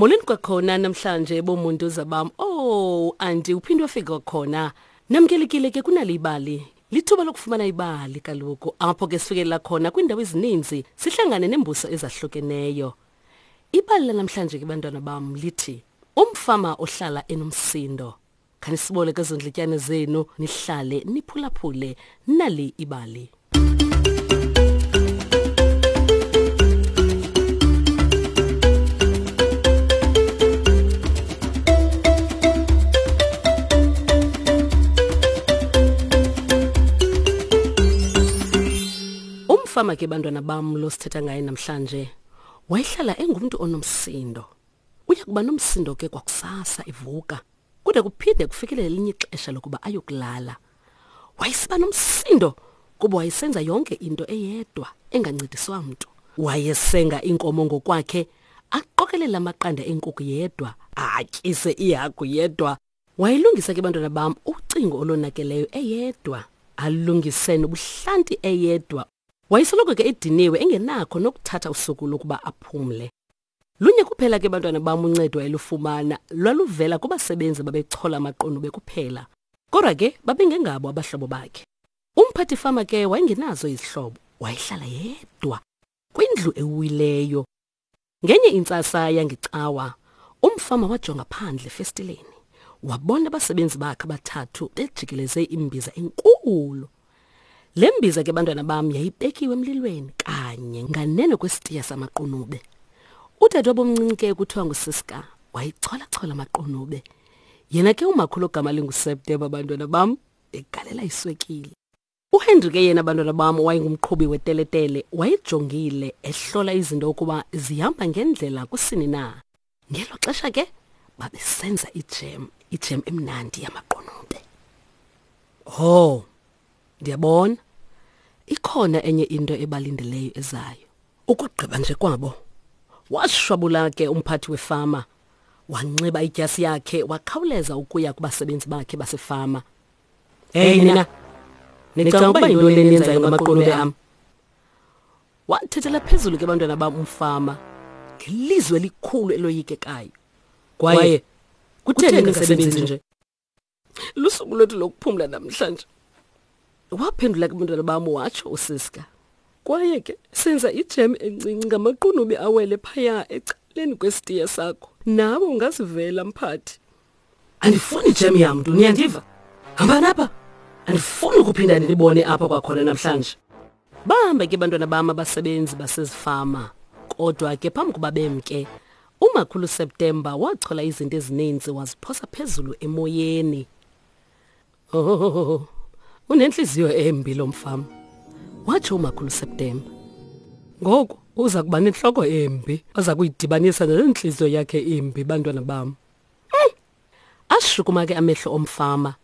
Molweni kwakhona namhlanje bomuntu zabam. Oh, anti uphinde wafika kwakhona. Namkelekile ke kunali ibali. Lithuba lokufumana ibali kaloku apho ke sifikelela khona kwiindawo ezininzi sihlangane neembuso ezahlukeneyo. Ibali lanamhlanje ke bantwana bam lithi umfama ohlala enomsindo. Khanisibole kwezo ndlityane zenu nihlale niphulaphule nali ibali. Umfama ke bantwana bam lo sithetha ngaye namhlanje wayehlala engumntu onomsindo. Uya kuba nomsindo ke kwakusasa evuka kude kuphinde kufikelele elinye ixesha lokuba ayokulala. Wayesiba nomsindo kuba wayesenza yonke into eyedwa engancediswa mntu. Wayesenga iinkomo ngokwakhe, aqokelele amaqanda eenkukhu yedwa, atyise iihagu yedwa. Wayelungisa ke bantwana bam ucingo olonakeleyo eyedwa, alungise nobuhlanti eyedwa. Wayesoloko ke ediniwe engenakho nokuthatha usuku lokuba aphumle. Lunye kuphela ke bantwana bam uncedo ayelufumana lwaluvela kubasebenzi babechola amaqunube kuphela. Kodwa ke babengengabo abahlobo bakhe. Umphathi fama ke wayengenazo izihlobo, wayehlala yedwa kwindlu ewileyo. Ngenye intsasa yangecawa, umfama wajonga phandle efestileni. Wabona abasebenzi bakhe abathathu bejikeleze imbiza enkulu. Le mbiza ke bantwana bam yayibekiwe emlilweni kanye nganeno kwesitiya samaqunube. Udadewabo omncinci ke kuthiwa nguSiska wayicholachola amaqunube. Yena ke umakhulu ogama linguSeptember bantwana bam egalela iswekile. UHenry ke yena bantwana bam wayengumqhubi weteletele wayejongile ehlola izinto ukuba zihamba ngendlela kusini na. Ngelo xesha ke babesenza ijem, ijem emnandi yamaqunube. Ho, ndiyabona ikhona enye into ebalindeleyo ezayo. Ukugqiba nje kwabo, washwabula ke umphathi wefama, wanxiba idyasi yakhe wakhawuleza ukuya kubasebenzi bakhe basefama. Hey nina, nicinga ukuba yintoni le niyenzayo ngamaqunube am? Wathethela phezulu ke bantwana bam umfama ngelizwi elikhulu eloyikekayo. Kwaye kutheni ningasebenzi nje? Lusuku lwethu lokuphumla namhlanje. Waphendula ke bantwana bam watsho uSiska. Kwaye ke senza ijem encinci ngamaqunube awele phaya ecaleni kwesitiya sakho. Nawe ungazivela mphathi. Andifuni ijem yamntu, niyandiva? Hambani apha. Andifuni ukuphinda ndinibone apha kwakhona namhlanje. Bahamba ke bantwana bam abasebenzi basezifama. Kodwa ke phambi kuba bemke, uMakhulu September wachola izinto ezininzi waziphosa phezulu emoyeni. Oh, unentliziyo embi lo mfama, watsho uMakhulu September. Ngoku uza kuba nentloko embi aza kuyidibanisa nale ntliziyo yakhe imbi, bantwana bam. Ashukuma ke amehlo omfama.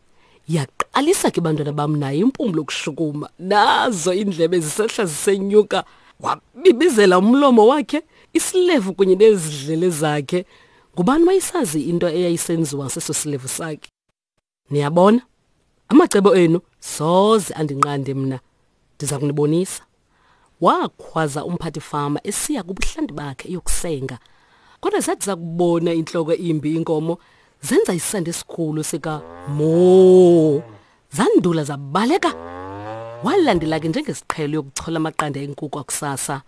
Yaqalisa ke bantwana bam naye impumlo ukushukuma. Nazo iindlebe zisehla zisenyuka. Wabibizela umlomo wakhe, isilevu kunye nezidlele zakhe. Ngubani wayesazi into eyayisenziwa seso silevu sakhe? Niyabona? Amacebo enu soze andinqande mna. Ndiza kunibonisa. Wakhwaza umphathi fama esiya kubuhlanti bakhe eyokusenga. Kodwa zathi zakubona intloko imbi inkomo zenza isandi esikhulu sika moo. Zandula zabaleka. Walandela ke njengesiqhelo yokuchola amaqanda enkuku akusasa.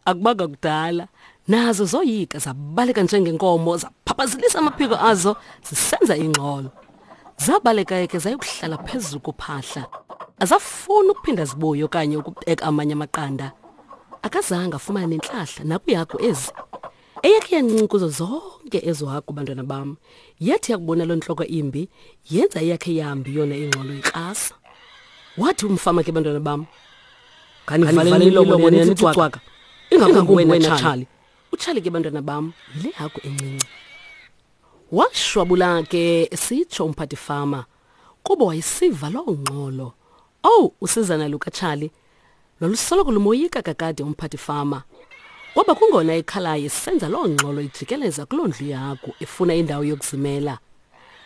Akubanga kudala nazo zoyika zabaleka njengenkomo zaphaphazelisa amaphiko azo zisenza ingxolo. Zabaleka ke zayokuhlala phezulu kophahla. Azafuni ukuphinda zibuye okanye ukubeka amanye amaqanda. Akazange afumane nentlahla nakwiihagu ezi. Eyakhe yancinci kuzo zonke ezo hagu bantwana bam. Yathi yakubona loo ntloko imbi yenza eyakhe yambi yona ingxolo ikrasa. Wathi umfama ke bantwana bam, Khanivaleni imilomo nina nithi cwaka. Ingakumbi wena Charlie. UCharlie ke bantwana bam yile hagu encinci. Washwabula ke esitsho umphathi fama kuba wayesiva loo ngxolo. Owu, usizana lukaCharlie lwalusoloko lumoyika kakade umphathi fama. Kwaba kungona ekhalayo esenza loo ngxolo ijikeleza kuloo ndlu yehagu efuna indawo yokuzimela.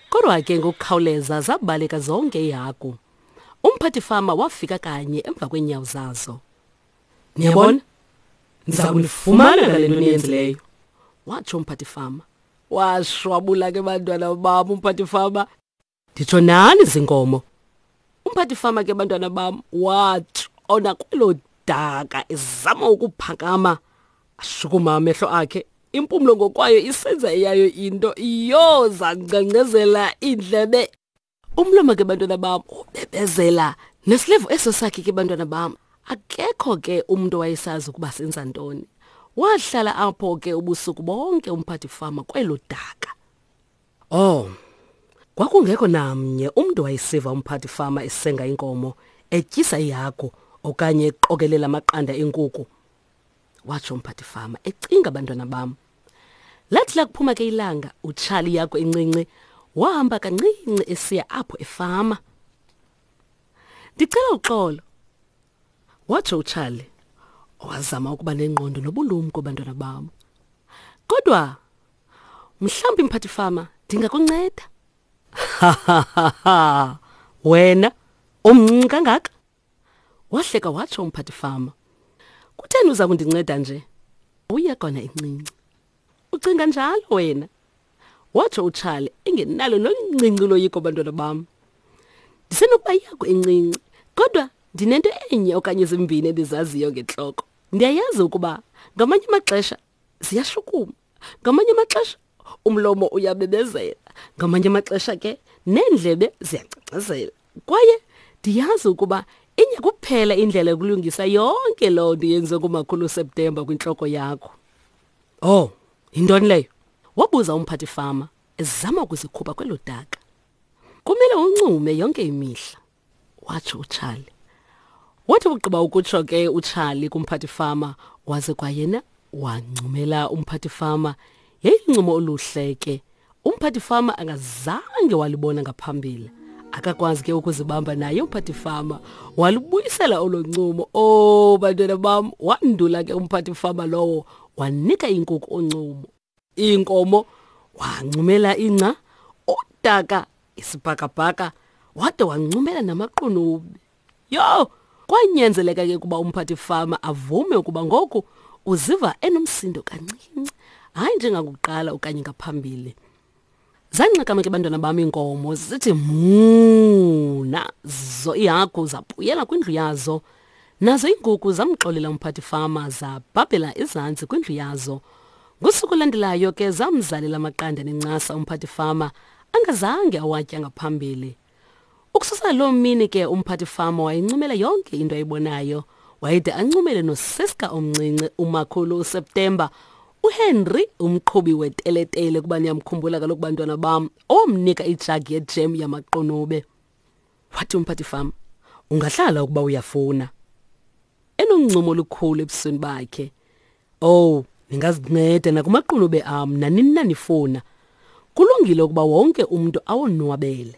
Kodwa ke ngokukhawuleza zabaleka zonke iihagu. Umphathi fama wafika kanye emva kweenyawo zazo. Niyabona? Ndiza kunifumana ngale nto niyenzileyo, watsho umphathi fama. Washwabula ke bantwana bam umphathi fama. Nditsho nani zinkomo. Umphathi fama ke bantwana bam watshona kwelo daka ezama ukuphakama. Ashukuma amehlo akhe impumlo ngokwayo isenza eyayo into iyoza ngcengcezela iindlebe. Umlomo ke bantwana bam ubebezela nesilevu eso sakhe ke bantwana bam. Akekho ke umuntu owayesazi ukuba senza ntoni. Wahlala apho ke ubusuku bonke umphathi fama kwelo daka. Oh. Kwakungekho namnye umuntu wayesiva umphathi fama esenga inkomo, etyisa ihagu okanye eqokelela amaqanda enkuku. Watsho umphathi fama ecinga abantwana bam. Lathi lakuphuma ke ilanga, uTshali yakho encinci wahamba kancinci esiya apho efama. Ndicela uxolo, watsho uCharlie, owazama ukuba nengqondo nobulumko bantwana bam. Kodwa mhlawumbi mphathi fama ndingakunceda. Wena umncinci kangaka? Wahleka watsho umphathi fama. Kutheni uza kundinceda nje? Uye kona incinci. Ucinga njalo wena? Watsho uCharlie engenalo noluncinci uloyiko bantwana bam. Ndisenokuba yakho incinci, kodwa ndinento enye okanye zimbini endizaziyo ngentloko. Ndiyayazi ukuba ngamanye amaxesha ziyashukuma, ngamanye amaxesha umlomo uyabebezela, ngamanye amaxesha ke neendlebe ziyangcangcazela. Kwaye ndiyazi ukuba inye kuphela indlela yokulungisa yonke loo nto yenziwe ngumakhulu uSeptemba kwintloko yakho. Oh, yintoni leyo? Wabuza umphathi fama ezama ukuzikhupha kwelo daka. Kumele uncume yonke imihla, watsho uCharlie. Wathi ugqiba ukutsho ke uCharlie kumphathi fama, waze kwayena wancumela umphathi fama. Yayiluncumo oluhle ke. Umphathi fama angazange walibona ngaphambili. Akakwazi ke ukuzibamba naye umphathi fama, walubuyisela olo ncumo. Oh bantwana bam, wandula ke umphathi fama lowo wanika inkukhu uncumo. Iinkomo wancumela ingca, udaka, isibhakabhaka, wade wancumela namaqunube. Yho, kwanyanzeleka ke ukuba umphathi fama avume ukuba ngoku uziva enomsindo kancinci, hayi njengakuqala okanye ngaphambili. Zanxakama ke bantwana bam iinkomo zithi muu, nazo iihagu zabuyela kwindlu yazo. Nazo iinkukhu zamxolela umphathi fama zabhabhela ezantsi kwindlu yazo. Ngosuku olulandelayo ke zamzalela amaqanda nencasa umphathi fama angazange awatya ngaphambili. Ukususela loo mini ke umphathi fama wayencumela yonke into ayibonayo. Wayede ancumele noSiska omncinci, umakhulu uSeptemba, uHenry umqhubi weteletele kuba niyamkhumbula kaloku bantwana bam, owamnika ijagi yejem yamaqunube. Wathi umphathi fama, ungahlala ukuba uyafuna. Enoncumo olukhulu ebusweni bakhe. Oh, ningazinceda nakumaqunube am nanini na nifuna. Kulungile ukuba wonke umntu awonwabele.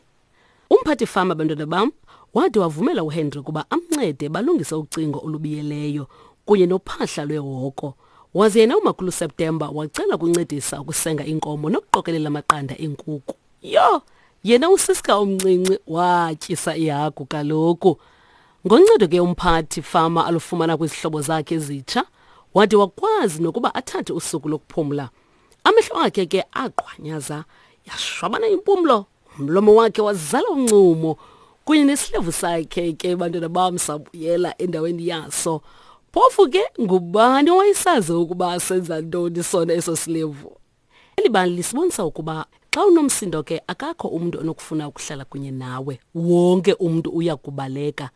Umphathi fama bantwana bam wade wavumela uHenry ukuba amncede balungise ucingo olubiyeleyo kunye nophahla lwehoko. Waze yena umakhulu September wacela ukuncedisa ukusenga iinkomo nokuqokelela amaqanda eenkuku. Yho, yena uSiska omncinci watyisa ihagu kaloku. Ngoncedo ke umphathi fama alufumana kwizihlobo zakhe ezitsha, wade wakwazi nokuba athathe usuku lokuphumla. Amehlo akhe ke aqhwanyaza, yashwabana impumlo, umlomo wakhe wazala uncumo kunye nesilevu sakhe ke bantwana bam sabuyela endaweni yaso. Phofu ke ngubani owayesazi ukuba senza ntoni sona eso silevu? Eli bali lisibonisa ukuba xa unomsindo ke akakho umntu onokufuna ukuhlala kunye nawe. Wonke umntu uya kubaleka.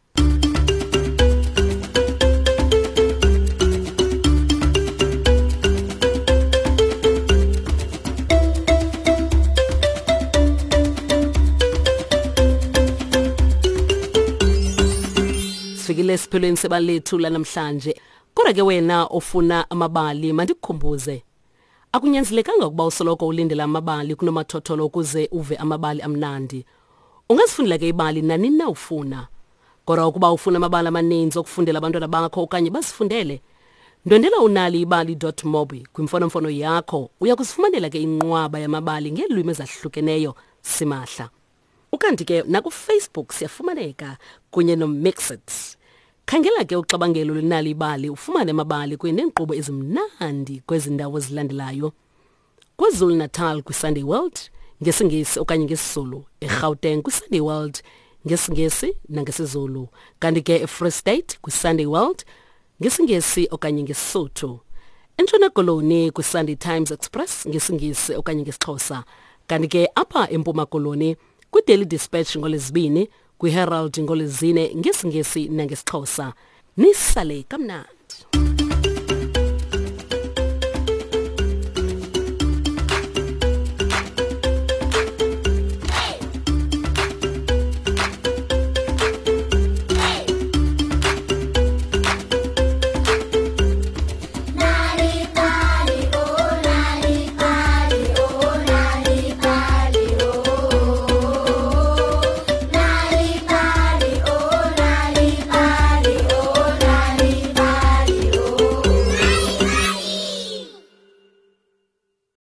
Sifikile esiphelweni sebali lethu lanamhlanje. Kodwa ke wena ofuna amabali mandikukhumbuze. Akunyanzelekanga ukuba usoloko ulindela amabali kunomathotholo ukuze uve amabali amnandi. Ungazifundela ke ibali nanini na ufuna. Kodwa ukuba ufuna amabali amaninzi okufundela abantwana bakho okanye bazifundele, ndwendela unaliibali.mobi kwimfonomfono yakho. Uya kuzifumanela ke inqwaba yamabali ngeelwimi ezahlukeneyo simahla. Ukanti ke nakuFacebook siyafumaneka kunye noMixit. Khangela ke uxabangelo lwenali ibali ufumane amabali kunye neenkqubo ezimnandi kwezi ndawo zilandelayo. KwaZulu-Natal kwiSunday World ngesiNgesi okanye ngesiZulu, eGauteng kwiSunday World ngesiNgesi nangesiZulu, kanti ke eFree State kwiSunday World ngesiNgesi okanye ngesiSotho. ENtshona Koloni kwiSunday Times Express ngesiNgesi okanye ngesiXhosa, kanti ke apha eMpuma Koloni kwiDaily Dispatch ngoLwezibini, kwiHerald ngoLwezine ngesiNgesi nangesiXhosa. Nisale kamnandi.